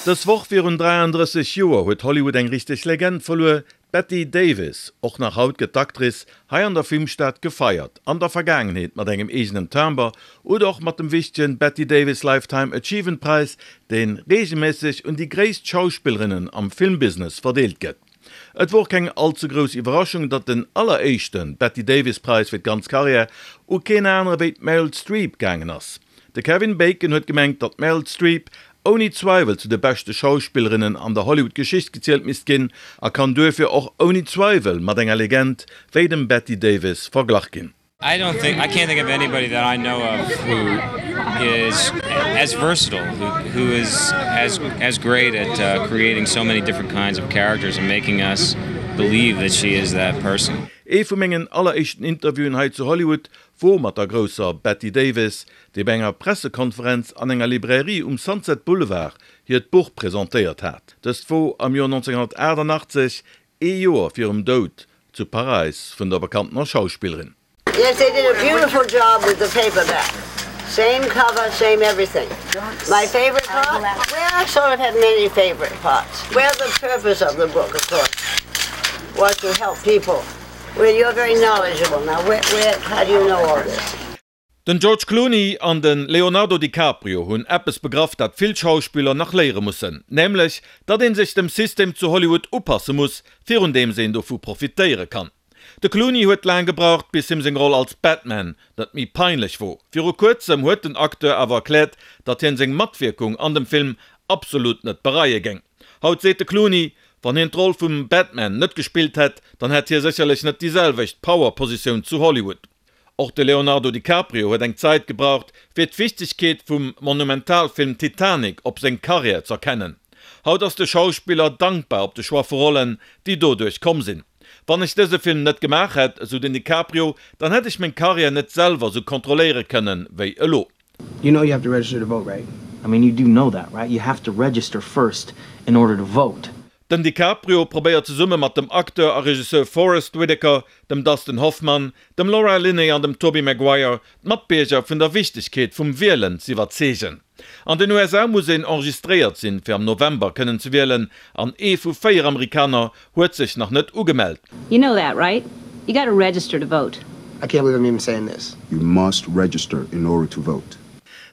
Dës Woch virun 33 Joer huet Hollywood eng richteg Legend verluer, d'Bette Davis. Och nach haut gëtt d'Actrice hei an der Filmstad gefeiert, an der Vergaangenheet mat engem eegenen Timber oder och mat dem wichtegen Bette Davis Lifetime Achievement Präis, dee reegelméisseg un déi gréisst Schauspillerinnen am Filmbusiness verdeelt gëtt. Et wor keng all ze grouss Iwwerraschung, datt den alleréischte Bette Davis Präis fir d'ganz Karriär u keen anere wéi d'Meryl Streep gaangen ass. De Kevin Bacon huet gemengt, datt d'Meryl Streep ouni Zweiwel zu de beschte Schauspillerinnen an der Hollywood-Geschicht gezielt misst ginn a kann duerfir och ouni Zweiwel mat enger Legend wéi dem Bette Davis verglach ginn. I don't think I can't think of anybody that I know of who is as versatile, who, who is as as great at uh, creating so many different kinds of characters and making us believe that she is that person. Ee vu mengen alleréischten Interviewen hei zu Hollywood wor mat der grousser Bette Davis, déi bei enger Pressekonferenz an enger Librairie um Sunset Boulevard hiert Buch presentéiert hat. Dëst wor am Joer 1988, ee Joer virum Doud zu Paräis vun der bekanntener Schauspillerin. Yes, they did a beautiful job with the paperback. Same cover, same everything. My favorite part? Well, I sort of have many favorite parts. Well, the purpose of the book, of course, was to help people. Well, you're very knowledgeable. Now, where, where, how do you know all this? Den George Clooney an de Leonardo DiCaprio hunn eppes begraff, dat vill Schauspiller nach léiere mussen, nämlech datt ee sech dem System zu Hollywood upasse muss, virun deems een dovu profitéiere kann. De Clooney huet laang gebraucht, bis him seng Roll als Batman net méi peinlech wor. Viru kuerzem huet den Acteur awer erkläert, datt hien seng Matwierkung an dem Film absolut net bereie géing. Haut seet de Clooney, wann hien d'Roll vum Batman net gespillt hätt, dann hätt hie sécherlech net déi selwecht Power-Positioun zu Hollywood. Och de Leonardo DiCaprio huet eng Zäit gebraucht, fir d'Wichtegkeet vum Monumentalfilm Titanic op seng Karriär z'erkennen. Haut ass de Schauspiller dankbar op de Choix vu Rollen, déi doduerch komm sinn. Wann ech dëse Film net gemaach hätt, esou den DiCaprio, dann hätt ech meng Karriär net selwer sou kontrolléiere kënnen, wéi elo. You know you have to register to vote, right? I mean you do know that, right? You have to register first in order to vote. Den DiCaprio probéiert zesumme mat dem Acteur a Regisseur Forest Whitaker, dem Dustin Hoffman, dem Laura Linney an dem Tobey Maguire d'Matbierger vun der Wichtegkeet vum Wielen z'iwwerzeegen. An den USA muss een enregistréiert sinn, fir am November kënnen ze wielen, an ee vu 4 Amerikaner huet sech nach net ugemellt. You know that, right? You gotta register to vote. I can't believe I'm even saying this. You must register in order to vote.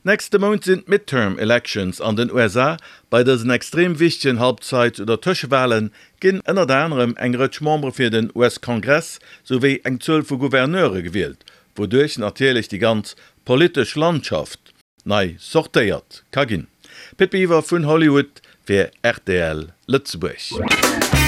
Nächste Mount sinn d'Midterm Elections an den USA. Bei dësen extrem wichtegen Halbzeit oder Tëschewale ginn ënnert anerem eng Rëtsch Membere fir den US-Kongress souwéi eng Zuel vu Gouverneure gewielt, wouduerch natierlech déi ganz politesch Landschaft nei sortéiert ka ginn. Pit Biwer vun Hollywood fir rtl Lëtzebuerg.